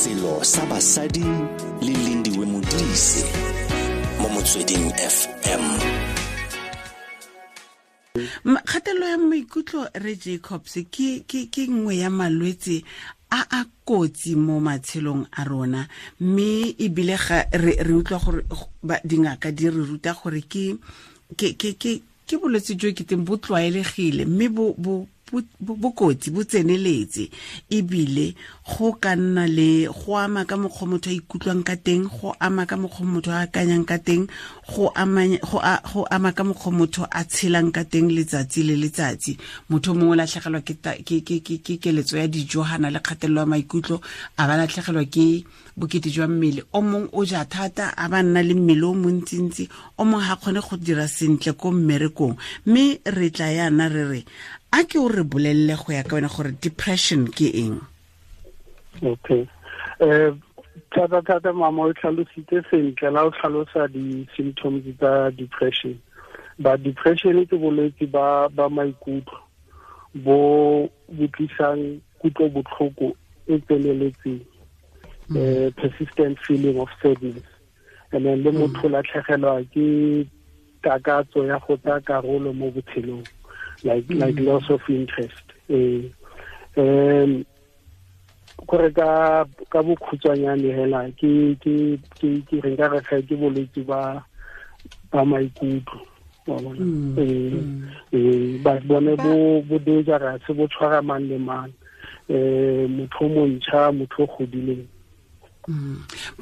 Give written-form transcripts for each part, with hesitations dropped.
Selo sa basadi le Lindiwe Modise mo Motsweding FM. Kgatelelo ya maikutlo, re Jacobs, ke nngwe ya malwetse a a kotsi mo matshelong a rona, mme ebile ga re utlwa gore dingaka di re ruta gore ke bolwetse jo ke teng bo tlwaelegile, mme bo kotsi, bo tseneletse, ebile go ka nna le go ama ka mokgwa motho a ikutlwang ka teng, go ama ka mokgwa motho a akanyang ka teng, go ama ka mokgwa motho a tshelang ka teng letsatsi le letsatsi. Motho mongwe o latlhegelwa ke keletso ya dijo gana le kgatelelo ya maikutlo, a ba latlhegelwa ke bokete jwa mmele. O mongwe o ja thata, a ba nna le mmele o montsintsi. O mongwe ga kgone go dira sentle ko mmerekong. Mme re tla yana re re a ke o re bolelele go ya ka wena gore depression ke eng? Okay, thata thata, mama, o tlhalositse sentle la o tlhalosa di-symptoms tsa depression. Ba depression ke bolwetse ba maikutlo bo bo tlisang kutlo botlhoko e tseneletseng, persistent feeling of sadness, and then le motho latlhegelwa ke takatso ya go tsaya karolo mo botshelong, like loss of interest. Kore ka bokhutshwanyane hela, ke re nka re ga ke bolwetse ba maikutlo, wa bona. Ba bone bo dangerous, bo tshwara mang le mang, motho o montšha, motho o godileng.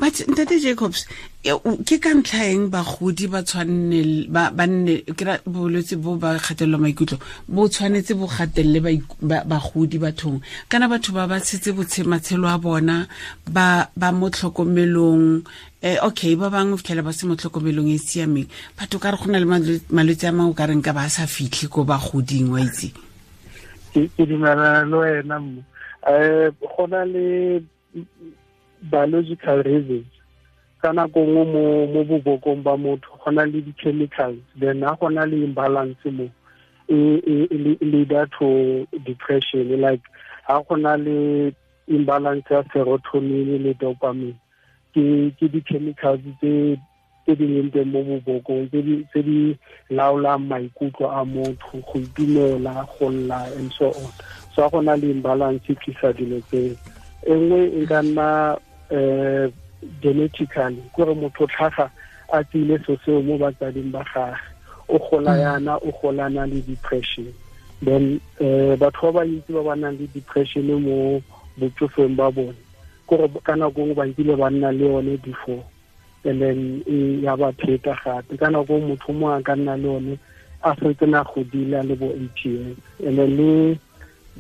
But ntate Jacobs, ke ka ntlha eng bagodi ba tshwanne ba nne ke ra bolwetse bo ba kgatelelo maikutlo bo tshwanetse bo gatelele bagodi bathong, kana batho ba ba tshetse matshelo a bona ba mo tlhokomelong? Okay, ba bangwe fitlhela ba se mo tlhokomelong e siameng. Batho ka re go na le malwetse a mangwe o ka reng ka ba sa fitlhe ko bagoding, wa itse. Ke dumelana le wena mo. Go na le biological reasons. Ka nako nngwe mo bobokong ba motho go na le di-chemicals, then ha go na le imbalance mo e leader to depression, like ha go na le imbalance ya serotonin le dopamine, ke di-chemicals tse di leng teng mo bobokong tse di laolang maikutlo a motho, go itumela, go lla and so on. So ha go na le imbalance e tlisa dilo tseo. E nngwe e ka nna genetically, kore motho tlhaga a tsile so seo mo batsading ba gage, o gola yana o golana le depression. Then batho ba bantsi ba ba nang le depression mo botsofeng ba bone, kore ka nako nngwe ba nkile ba nna le yone before, and then e ya ba pheta gape. Ka nako motho mo a ka nna le yone a setse na godile, a le bo 80 years. And then le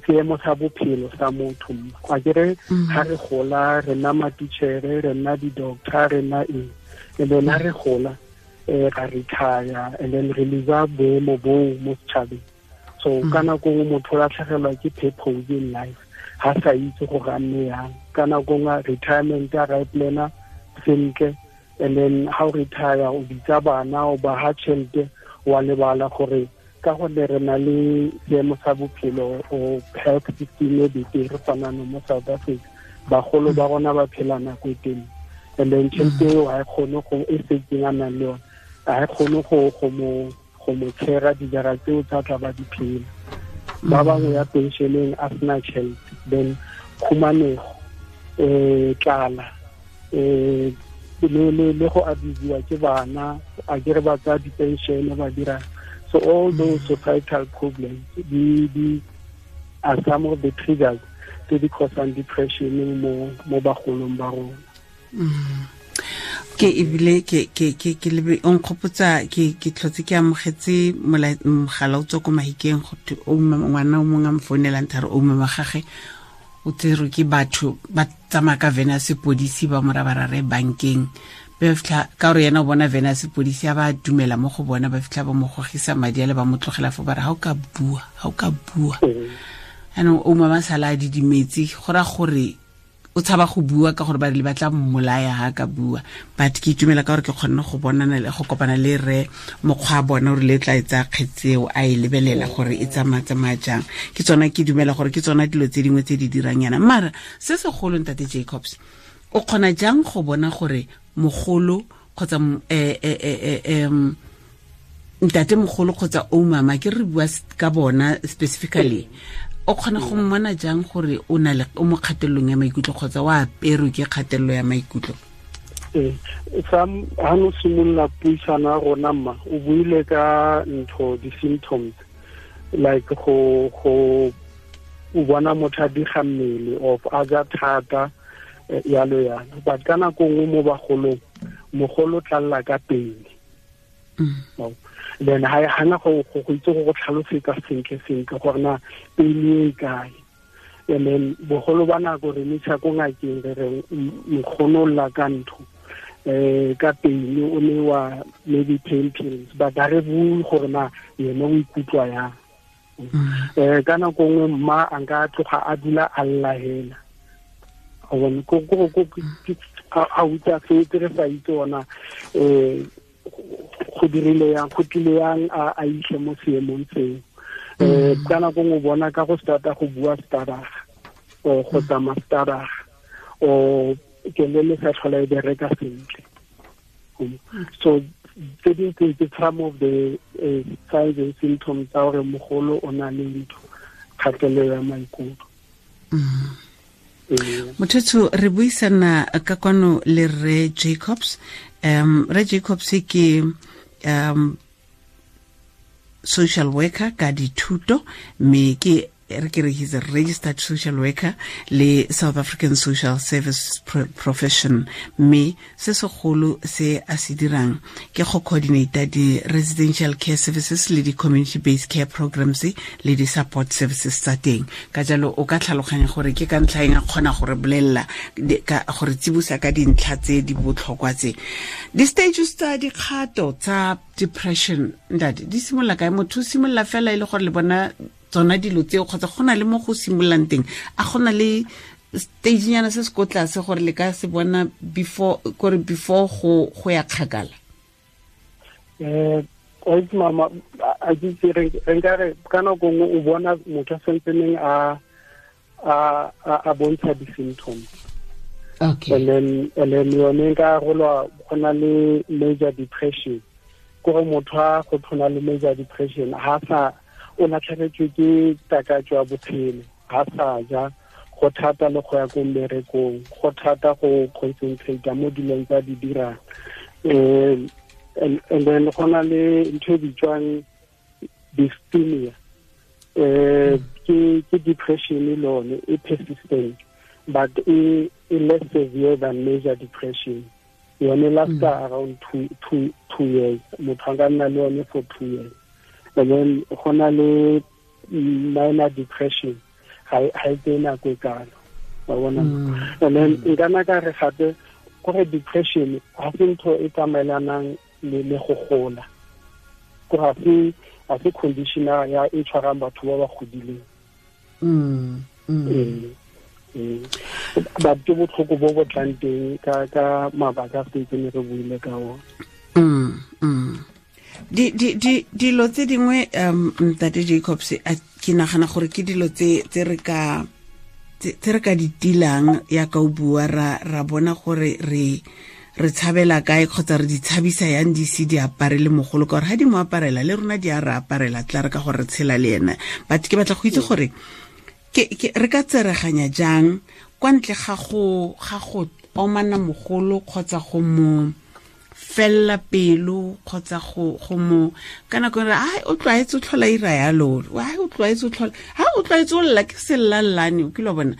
seemo sa bophelo sa motho, a kere ga re gola re nna matitšhere, re nna di-doctor, re nna eng, and then ha re gola ra retire, and then re lose boemo boo mo setšhabeng. So ka nako nngwe motho o latlhegelwa ke purpose in life, ha sa itse gore a nne yang. Ka nako nngwe retirement a ra e plana sentle, and then ha o retire o bitsa bana, o ba ha tšhelete, wa lebala gore ka gonne re na le seemo sa bophelo o health system e betere gona mo South Africa, bagolo ba rona ba phela nako e telele, and then tšhelete eo ga e kgone go e setseng a nang le yone, ga e kgone go mo tshera dijara tseo tsa tla ba di phela. Ba bangwe ya pensioneng a sena tšhelete, then khumanego, tlala, le go abusiwa ke bana, a kere ba tsaya di-pension ba dira. So all those societal problems di are some of the triggers tse di causang depression mo bagolong ba rona. Ke ebile ke lebe o nkgopotsa, ke tlhotse ke amogetse mogala o tswa ko Mahikeng, go thwe o ngwana o mongwe a mfounelang thare o mme wa gage o tserwe ke batho ba tsamaya ka vene ya sepodisi, ba mo ra bankeng. Ba fitlha ka gore yena o bona vene ya sepodisi, a ba dumela mo go bona, ba fitlha ba mo gogisa madi a le, ba mo tlogela fo, ba re ga o ka bua, ga o ka bua. Anong o mama sala a didimetse, go raya gore o o tshaba go bua ka gore ba le batla mmolaya ha ka bua. But ke itumela ka gore ke kgonne go bonana le go kopana le re mokgwa bona gore le tla etsa kgetseo a e lebelela gore e tsamaya jang. Ke tsona ke dumela gore ke tsona dilo tse dingwe tse di dirang yana. Mara se segolo ntate Jacobs, o kgona jang go bona gore mogolo kgotsa ntate mogolo kgotsa o mama, ke re bua ka bona specifically, o kgona go mmona jang gore o na le o mo kgatellong ya maikutlo kgotsa wa aperwe ke kgatello ya maikutlo? Sam ha no simolola puisano ya rona mma, o buile ka ntho di-symptoms like go o bona motho a diga mmele of a ja thata yalo yalo. But ka nako nngwe mo bagolong, mogolo tlalla ka pele. Then ha hana go itse go tlhalosetsa sentle gore na pele e kae. And then bogolo ba nako re ntsha ko ngakeng re re nkgono lla ka ntho ka pele o ne wa maybe pain pills, but ha re bue gore na yena o ikutlwa yang. Ka nako nngwe mma a nka tloga a dula a lla hela. Ko a utlwa fetse re sa itse ona go dirile yang, go tlile yang a itlhe mo seemong seo. Ka nako nngwe o bona ka go starta go bua staraga or go tsamaya staraga or kelele sa tlhola e bereka sentle. So tse dingwe ke some of the signs and symptoms tsa gore mogolo o na le ntho kgatelelo ya maikutlo. Motho re buisana ka kwano le Re Jacobs. Re Jacobs ke social worker ka dithuto, mme ke re ke re he's a registered social worker le South African Social Service Profession, mme se segolo se a se dirang ke go coordinate di residential care services le di community based care programs le di support services tsa teng. Ka jalo o ka tlhaloganya gore ke ka ntlha eng a kgona gore bolella ka gore tsibusa ka dintlha tse di botlhokwa tse. Di stages tsa dikgato tsa depression ntate di simolola kae? Motho o simolola fela e le gore le bona tsona dilo tseo kgotsa go na le mo go simololang teng? A go na le stage nyana se se ko tlase gore le ka se bona before gore before go ya kgakala? Mama, a ke re nka re ka nako nngwe o bona motho a santseneng a bontsha di-symptoms. Okay. And then yone nka arolwa go na le major depression. Gore motho a go tshwana le major depression ha sa o latlhegetswe ke takatso ya bophelo, ha sa ja, go thata le go ya ko mmerekong, go thata go concentrate mo dilong tsa di dirang. And then go na le ntho e bitswang dysthymia. Ke depression lone e persistent but e less severe than major depression. Yone lasta around two years. Motho a ka nna le yone for 2 years. And then go na le minor depression ha e tseye nako e kalo, wa bona. And then nka nna ka re gape gore depression ha se ntho e tsamaelanang le go gola, ko ga se condition ya e tshwarang batho ba ba godileng. But ke botlhoko bo bo tlang teng ka mabaka a setse ne re buile ka ona. Dilo tse dingwe ntate Jacobs, ke nagana gore ke dilo tse re ka di tilang ya ka o bua ra bona gore re tshabela kae kgotsa re di tshabisa yang di se di apare le mogolo, ka gore ha di mo aparela le rona di a re aparela tla re ka gore re tshela le ena. But ke batla go itse gore ke re ka tsereganya jang kwa ntle ga go omana mogolo kgotsa go mo fella pelo kgotsa go mo ka nako re ai o tlwaetse o tlhola ira yalo, ai o tlwaetse o tlhola ha o tlwaetse o lla ke sellallane, o kile bona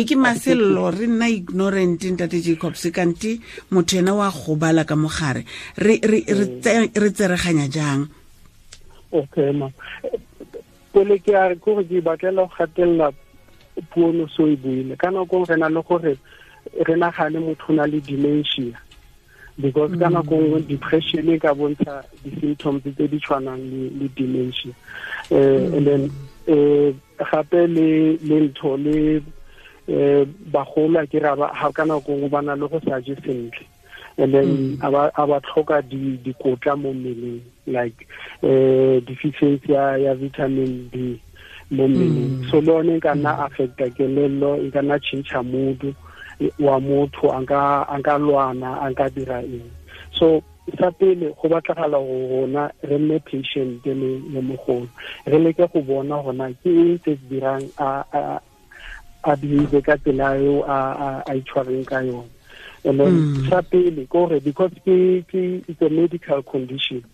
ke masello, re nna ignorant ntate Jacobs, kante motho ena wa gobala ka mogare. Re tsereganya jang? Okay ma, pele ke a re gore ke batlela go gatella puo no so e buile. Ka nako re na le gore re nagane motho na le dementia, because ka nako nngwe depression e ka bontsha di-symptoms tse di tshwanang le dementia. And then Gape le ntho le bagolo a ke ra ga ka nako nngwe ba na le go sa je sentle, and then a ba tlhoka dikotla mo mmeleng, like deficiency ya vitamin D mo mmeleng. So le yone e ka nna affecta kelello, e ka nna change mood wa motho, a nka lwana, a nka dira eng. So sa pele go batlagala go rona re nne patient le mogolo, re leke go bona gona ke eng se se dirang a behave ka tsela eo a itshwareng ka yone. And then sa pele kore because ke it's a medical condition,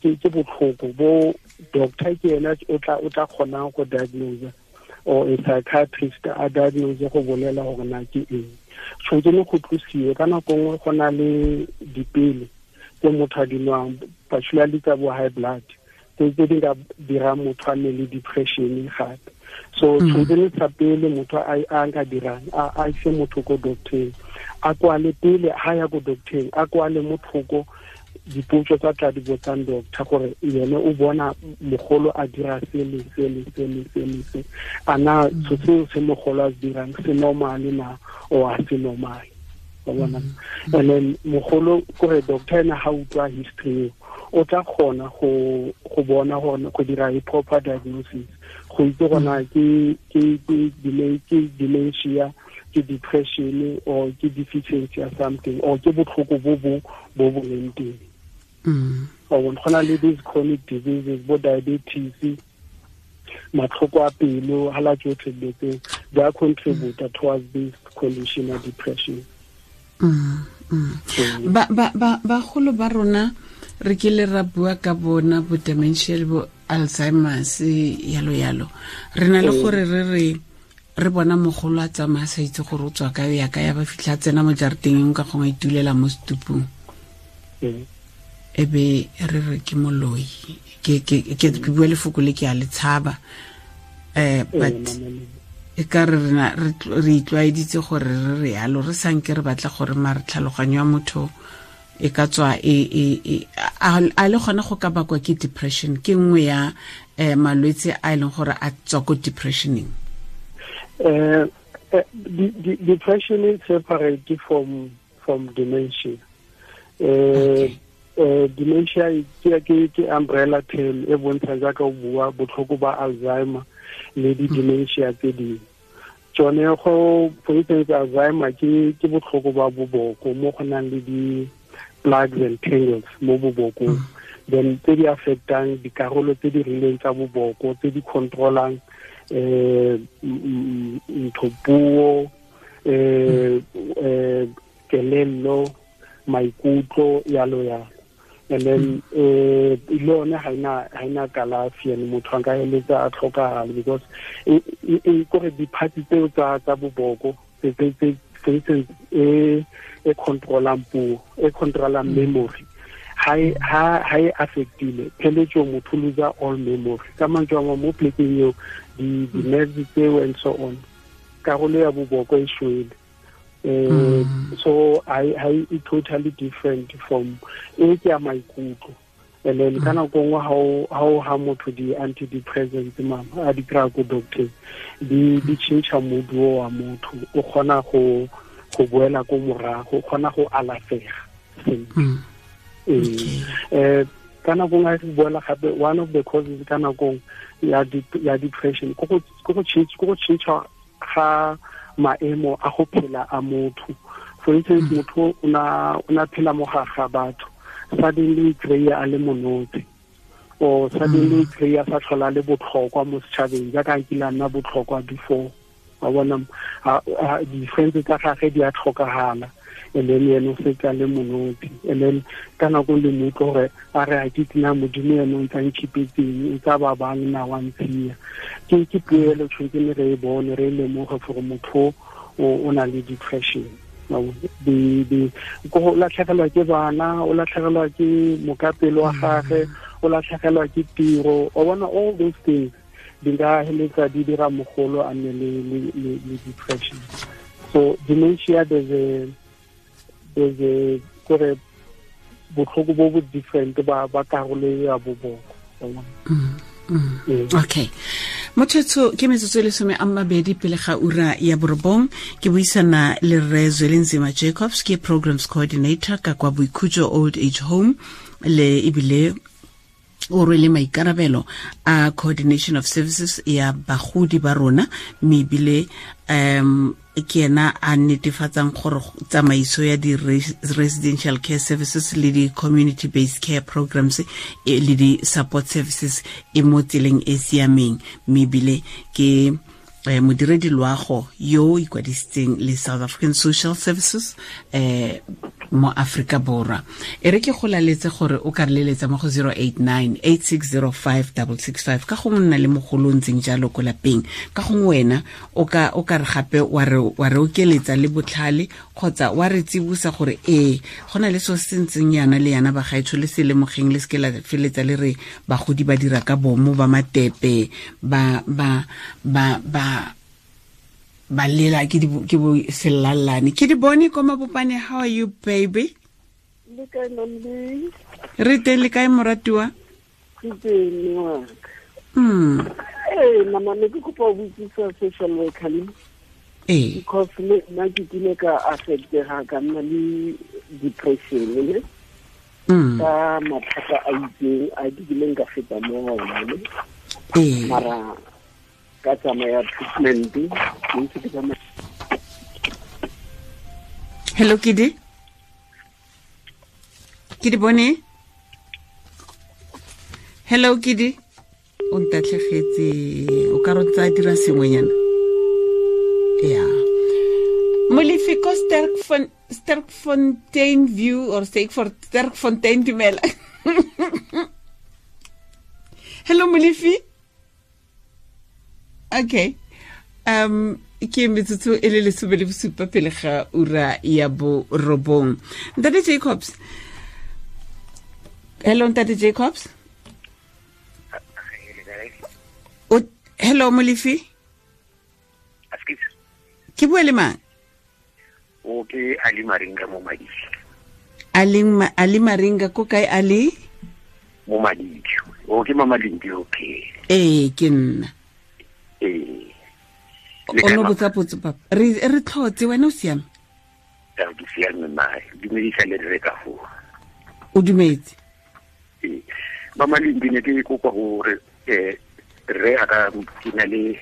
ke botlhoko bo doctor ke ena o tla kgonang go diagnose, or a psychiatrist a diagnose go bolela gore na ke eng. Tshwanetse ne go tlosiwe ka nako nngwe go na le dipele tse motho a di nwang, particularly tsa bo high blood, tse di ka dirang motho a nne le depression gape. So tshwanetse ne sa pele motho a nka dirang, a ise motho ko doctor, a kwale pele ha ya ko doctor, a kwale mothoko dipotso tsa tla di botsang doctor gore yene o bona mogolo a dira se le se le se le se le se, a na seo se mogolo a se dirang se normal na or a se normal, wa bona. And then mogolo kore doctor ena ha utlwa history o tla kgona go bona gore go dira a proper diagnosis, go itse gona ke dementia, ke depression, or ke deficiency or something, or ke botlhoko bo bo leng teng. Go na le these chronic diseases, bo diabetes, matlhoko a pelo, hala tsotlhe dilo tse di a contribute towards this condition of depression. Bagolo ba rona re kile ra bua ka bona bo dementia le bo Alzheimer's yalo yalo. Re na le gore re bona mogolo a tsamaya sa itse gore o tswa kae ya ka ya ba fitlha tsena mo jarateng ka gongwe itulela mo setupung. E be re re ke moloi, ke bua lefoko le ke a le tshaba, but e ka re rena re itlwaeditse gore re re yalo, re sanke re batla gore mare tlhaloganyo ya motho e ka tswa e a le gona go ka bakwa ke depression, ke nngwe ya malwetse a e leng gore a tswa ko depressioning. Depression is separate from dementia. Okay. Dementia ke umbrella term e bontsha jaaka o bua botlhoko ba Alzheimer le di dementia tse dingwe. Tsone go for instance Alzheimer ke botlhoko ba boboko mo go nang le di plugs and tangles mo bobokong, then tse di affectang dikarolo tse di rileng tsa boboko tse di controlang ntho puo, kelello, maikutlo, yalo yalo. And then le yone ha ina kalafi, and motho a ka eletsa a tlhokagala because e kore di-parts tseo tsa boboko tse for instance e controlang puo, e controlang memory, ha e affectile pheletso motho lose all memory. Ka mantswe a mo plekeng eo di-nerves tseo and so on, karolo ya boboko e shwele. So I totally different from e ke ya maikutlo. And then ka nako nngwe ha motho di antidepressants mama a di kry-a ko doctor, di change mood wa motho, o kgona go boela ko morago, o kgona go alafega sentle. Ka nako nngwe re boela gape one of the causes ka nako ya depression ko go change ga maemo a go phela a motho. For instance, motho o na phela mo ga batho, suddenly kry-a a le monotse, or suddenly kry-a sa tlhola le botlhokwa mo setšhabeng jaaka a kile a nna botlhokwa before. Wa bona di-friends tsa gage di a tlhokagala, and then ene o setse a le monotse. And then ka nako le mo utlwe gore a re a ke tsena modimo ene o ntse a nkhipetseng, o tsa ba bang na wa ntshia. Ke puelo tshwanetse re e bone, re e lemoge gore motho o na le depression. Go latlhegelwa ke bana, o latlhegelwa ke mokapelo wa gage, o latlhegelwa ke tiro, o bona all those things di ka heletsa di dira mogolo a nne le depression. So dementia there's a kore botlhoko bo bo different ba karolo ya boboko. Okay. Mothetso ke metsotso e 12 pele ga ura ya 9 ke buisana le Rre Zwelinzima Jacobs, ke programs coordinator ka kwa Boikhutso Old Age Home, le ebile o rwele maikarabelo a coordination of services ya bagodi ba rona, mme ebile ke ena a netefatsang gore tsamaiso ya di-residential care services le di-community based care programs le di-support services e mo tseleng e siameng, mme ebile ke modiredi loago yo ikwadisitseng le South African Social Services mo Afrika Borwa. E re ke go laletse gore o ka re leletsa mo go 089 8605 665 ka gongwe nna le mogolo o ntseng jalo ko lapeng, ka gongwe wena o ka re gape wa re okeletsa le botlhale kgotsa wa re tsibosa gore ee go na le so se ntseng yana le yana bagaetsho le se lemogeng, le seke la feletsa le re bagodi ba dira ka bomo ba matepe ba ba ba ba ba lela ke bo sellalane. Ke di bone ko Mabopane. How are you, baby? Le kae, Mamdi? Re teng, le kae moratiwa? Ke teng ngwaka. Mama, ne ke kopa ho botsisa social worker le. Because le nna ke kile ka affectega ka nna le depression ne. Ka mathata a itseng a ke kileng ka feta mo ona ne. Mara ka tsamaya treatment ke ntse ke tsamaya. Hello, Kidi. Kidi bone. Hello, Kidi. O ntatlhegetse, o ka re tsa dira sengwenyana. Yeah. Molefi ko Sterkfontein View or Sterkfontein, dumela. Hello, Molefi. Okay. Ke metsotso e le 17 pele ga ura ya 9. Ntate Jacobs. Hello, Ntate Jacobs. Hello, Molefi. Ke bua le mang? O ke Ali Maringa mo Madidi. Ali Maringa ko kae, Ali? Mo Madidi. O ke Mama Lindi, okay. Ee, ke nna. O no botsa potso papa. Re tlhotse, wena o siame? Ke siame ma. Dumedisa le re ka fo. O dumetse? Ee. Mama Lindi, ne ke kopa hore re aka ke na le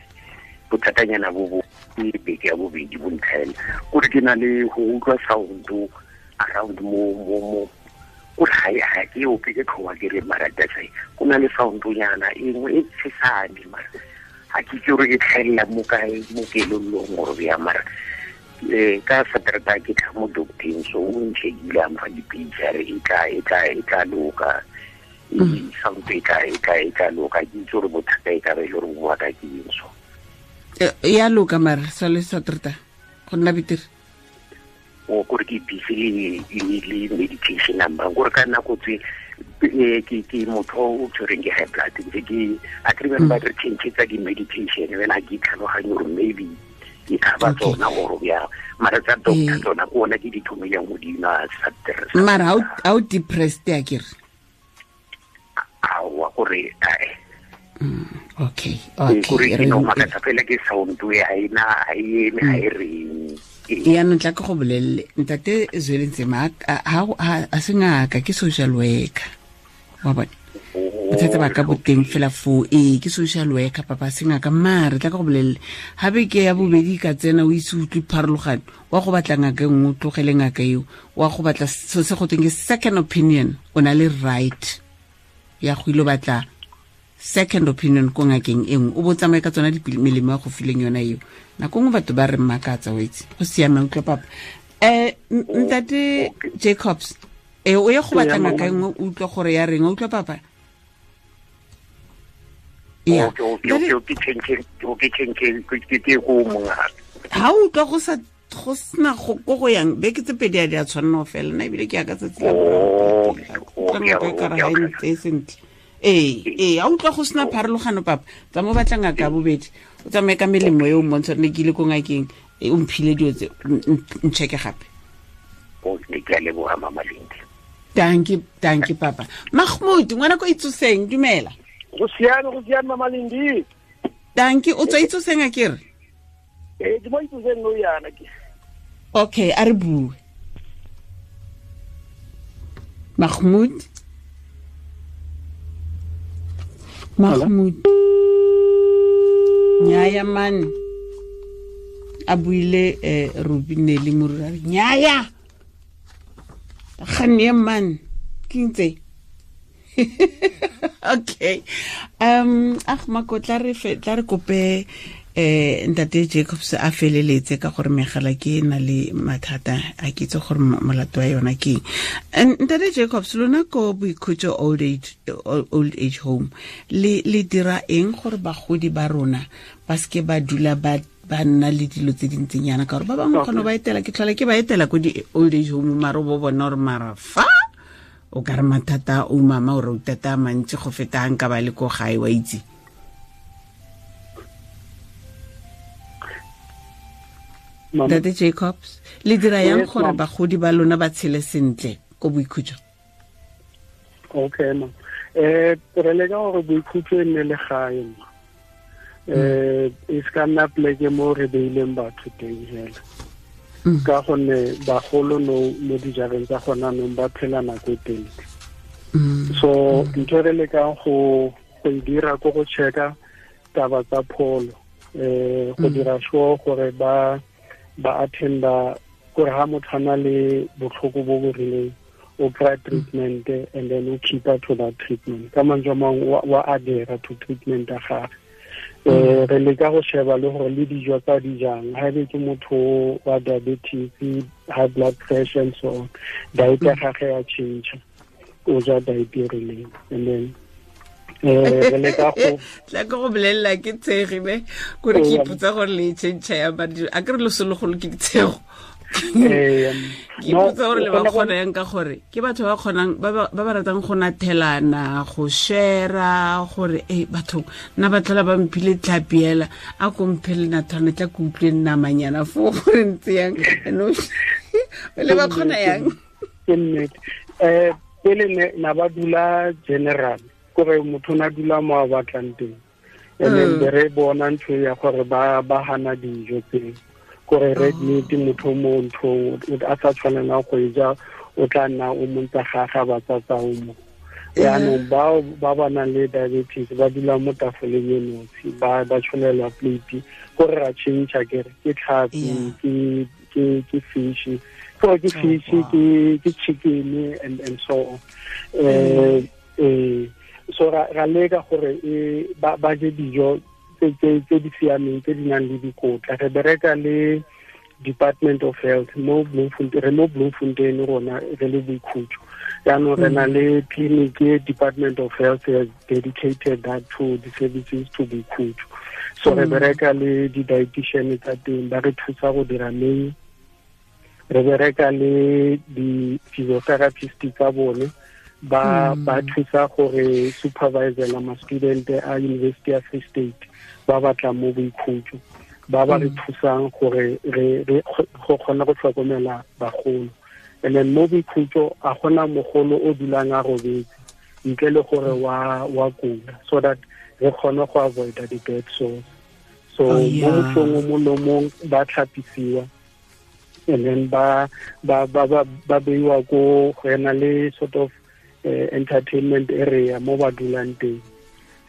bothatanyana bo bo beke ya bobedi bo ntlhaela. Kore ke na le go utlwa sound around mo mo mo kore ga ke ope ke tlhowa ke re mara that's go na le sound nyana e nngwe e tshesane mara ga ke itse gore e tlhaelela mo kae mo kelellong gore bja mara ka Saterdag ke tla mo docteng, so o nchekile a mfa dipilisi a re e tla loka. Sound e tla loka. Ke itse gore bothata e ka ba e le gore bo bua ka ke eng so. Ya loka mara sa le Saterdag go nna betere. O kore ke busy le medication number gore ka nako tse ke motho o tshwereng ke high blood ntse ke a ke ba re change tsa di-medication wena ke tlhaloganye gore maybe e ka ba tsona gore bja mara tsa doctor tsona ke ona ke di thomileng go di nwa Saterdag. Mara ha o depressed ya kere? Aowa gore ae. Okay. Kore ke no makatsa fela ke sound e ha ena ha e eme ha e reng. Yaanong tla ke go bolelele Ntate Zwelinzima a se ngaka, ke social worker. Wa bona? Bothata ba ka boteng fela foo. Ee, ke social worker papa, se ngaka. Mare tla ke go bolelele ga beke ya bobedi ka tsena o ise utlwe pharologano, wa go batla ngaka e nngwe o tlogele ngaka eo, wa go batla so se go tweng ke second opinion. O na le right ya go ile batla second opinion ko ngakeng e nngwe, o bo tsamaye ka tsona melemo ya go fileng yona eo. Nako nngwe batho ba re mmakatsa, o itse. Go siame, utlwa papa. Ntate Jacobs, o ye go batla ngaka e nngwe, o utlwa gore ya reng, o utlwa papa? Yeah. Ha o utlwa go sa go sena go ko go yang beke tse pedi a di a tshwanna go fela, nna ebile ke ya ka tsatsi la boraro. Ngaka e ka re ga e ntse sentle. Ee, a utlwa go sena pharologano papa, tsa mo batla ngaka ya bobedi, o tsamaye ka melemo eo mmontsha ne ke ile ko ngakeng, o mphile dilo tse, ncheke gape. Ke a leboga Mama Lindi. Thank you papa. Mahmoud, ngwana ko itsoseng, dumela. Go siame Mama Lindi. Dankie, o tswa Itsoseng a kere? Ke mo Itsoseng no yana ke. Okay, a re bue. Mahmoud. Nyaya man. A buile Ruby Nelly Morura. Nyaya. Gane man. Ke ntse. Okay. Mako tla re kope Ntate Jacobs a feleletse ka gore megala ke na le mathata a ke itse gore molato wa yona ke eng. Ntate Jacobs, lona ko Boikhutso old age home le dira eng gore bagodi ba rona ba seke ba dula ba nna le dilo tse dintseng yana, ka gore ba bangwe kgone ba etela, ke tlhola ke ba etela ko di old age home, maro bo bona gore mara fa o ka re mathata o mama o re utata mantsi go feta nka ba le ko gae wa itse. Ntate Jacobs, le dira yang gore bagodi ba lona ba tshele sentle ko Boikhutso? Okay ma. Re leka gore Boikhutso e nne le gae ma. E se ka nna pleke mo re beileng batho teng fela. Ka gonne bagolo no mo dijareng tsa gona nong ba phela nako e telele. So ntho re lekang go e dira ko go checka taba tsa pholo, go dira sure gore ba attenda gore ha motho a na le botlhoko bo bo rileng o kry treatment and then o keep to that treatment. Ka mantswe a mangwe wa adhere to treatment ya gage. Re leka go sheba le gore le dijo tsa di jang, ha ebe ke motho wa diabetes, high blood pressure and so on, diet ya gage ya change, o ja diet e rileng. And then re leka go tla ke go bolelela ke tshege ne gore ke ipotsa gore le change ya madi a ke re losologolo ke ditshego. Ke ipotsa gore le ba kgona yang ka gore ke batho ba kgonang ba ba ratang go nathelana, go share, gore batho nna ba tlhola ba mphile tlhapiela a ko mphele nathwana tla ke utlwe namanyana fo gore ntse yang le ba kgona yang. Ke nnete. Pele na ba dula general gore motho na dula mo a batlang teng, and then re bona ntho ya gore ba hana dijo tse gore red meat motho mo ntho a sa tshwanelang go e ja o tla nna o montsa gaga ba tsatsa o mo. Yaanong bao ba ba nang le diabetes ba dula mo tafoleng e nosi, ba tsholelwa plate gore ra change kere ke tlhapi ke fish, gore ke fish ke chicken and so on. So ra leka gore ba je dijo tse di siameng tse di nang le dikotla. Re bereka le Department of Health mo Bloemfontein, re mo Bloemfontein rona re le Boikhutso. Jaanong re na le clinic e Department of Health has dedicated that to the services to Boikhutso. So re bereka le di-dietitian tsa teng ba re thusa go dira menu. Re bereka le di-physiotherapist tsa bone ba thusa gore supervisor ma student a University of Free State ba batla mo Boikhutso, ba ba re thusang gore re go kgona go tlhokomela bagolo. And then mo Boikhutso a gona mogolo o dulang a robetse ntle le gore wa kula, so that re kgone go avoid the bed sores. So mo mothong o mongwe le mongwe ba tlhapisiwa and then ba beiwa ko go ena le sort of entertainment area mo ba dulang teng.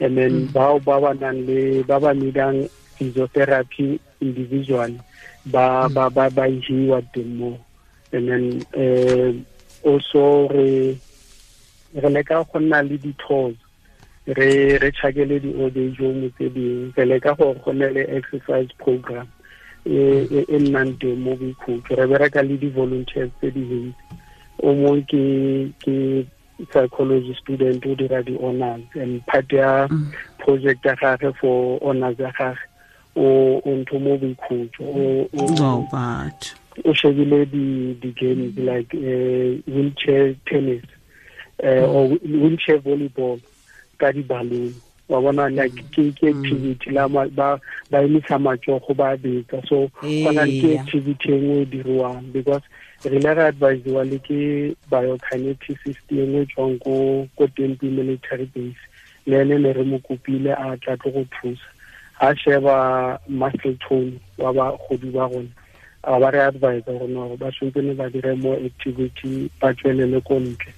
And then bao ba ba nang le ba ba needang physiotherapy individually ba isiwa teng mo. And then also re leka go nna le di-tours, re chakele di-old age home tse dingwe, re leka gore go nne le exercise program e nnang teng mo Boikhutso. Re bereka le di-volunteers tse dintsi, o mongwe ke psychology student o dira di-honors, and part ya project ya gage for honors ya gage o ntho mo Boikhutso o shebile di-games like wheelchair tennis or wheelchair volleyball ka di-balloon. Wa bona like ke activity la ba emisa matsogo ba betsa. So gona ke activity e nngwe e diriwang because re ile ra advisiwa le ke biokineticist e nngwe tswang ko Tempe military base, le ene ne re mo kopile a tla tlo go thusa. A sheba muscle tone wa bagodi ba rona, a ba re advise gore no, ba tshwanetse ba dire more activity, ba tswelele ko ntle,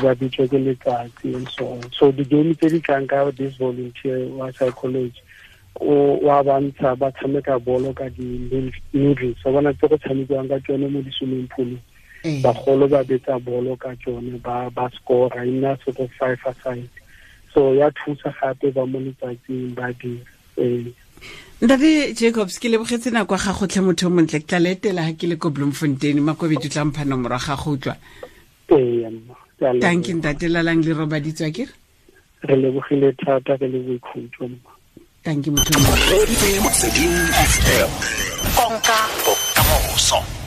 ba bitswe ke letsatsi and so on. So di-game tse di tlang ka this volunteer wa psychology, o wa bantsha ba tshameka bolo ka di-noodles, wa bona tse go tshamekiwang ka tsone mo di-swimming poolong. Bagolo ba betsa bolo ka tsone, ba scora, e nna sort of five aside. So ya thusa gape ba mo letsatsing ba dira. Ntate Jacobs, ke lebogetse nako ya gago tlhe, motho o montle. Ke tla le etela ga ke le ko Bloemfontein. Makobedi o tla mpha nomoro ya gago, utlwa? Ee, mma. Ke a leboga. Thank you, ntate. Lalang le robaditswa ke Re lebogile thata, re le boikhutso, mma. Thank you, motho o montle. Motsweding FM, konka bokamoso.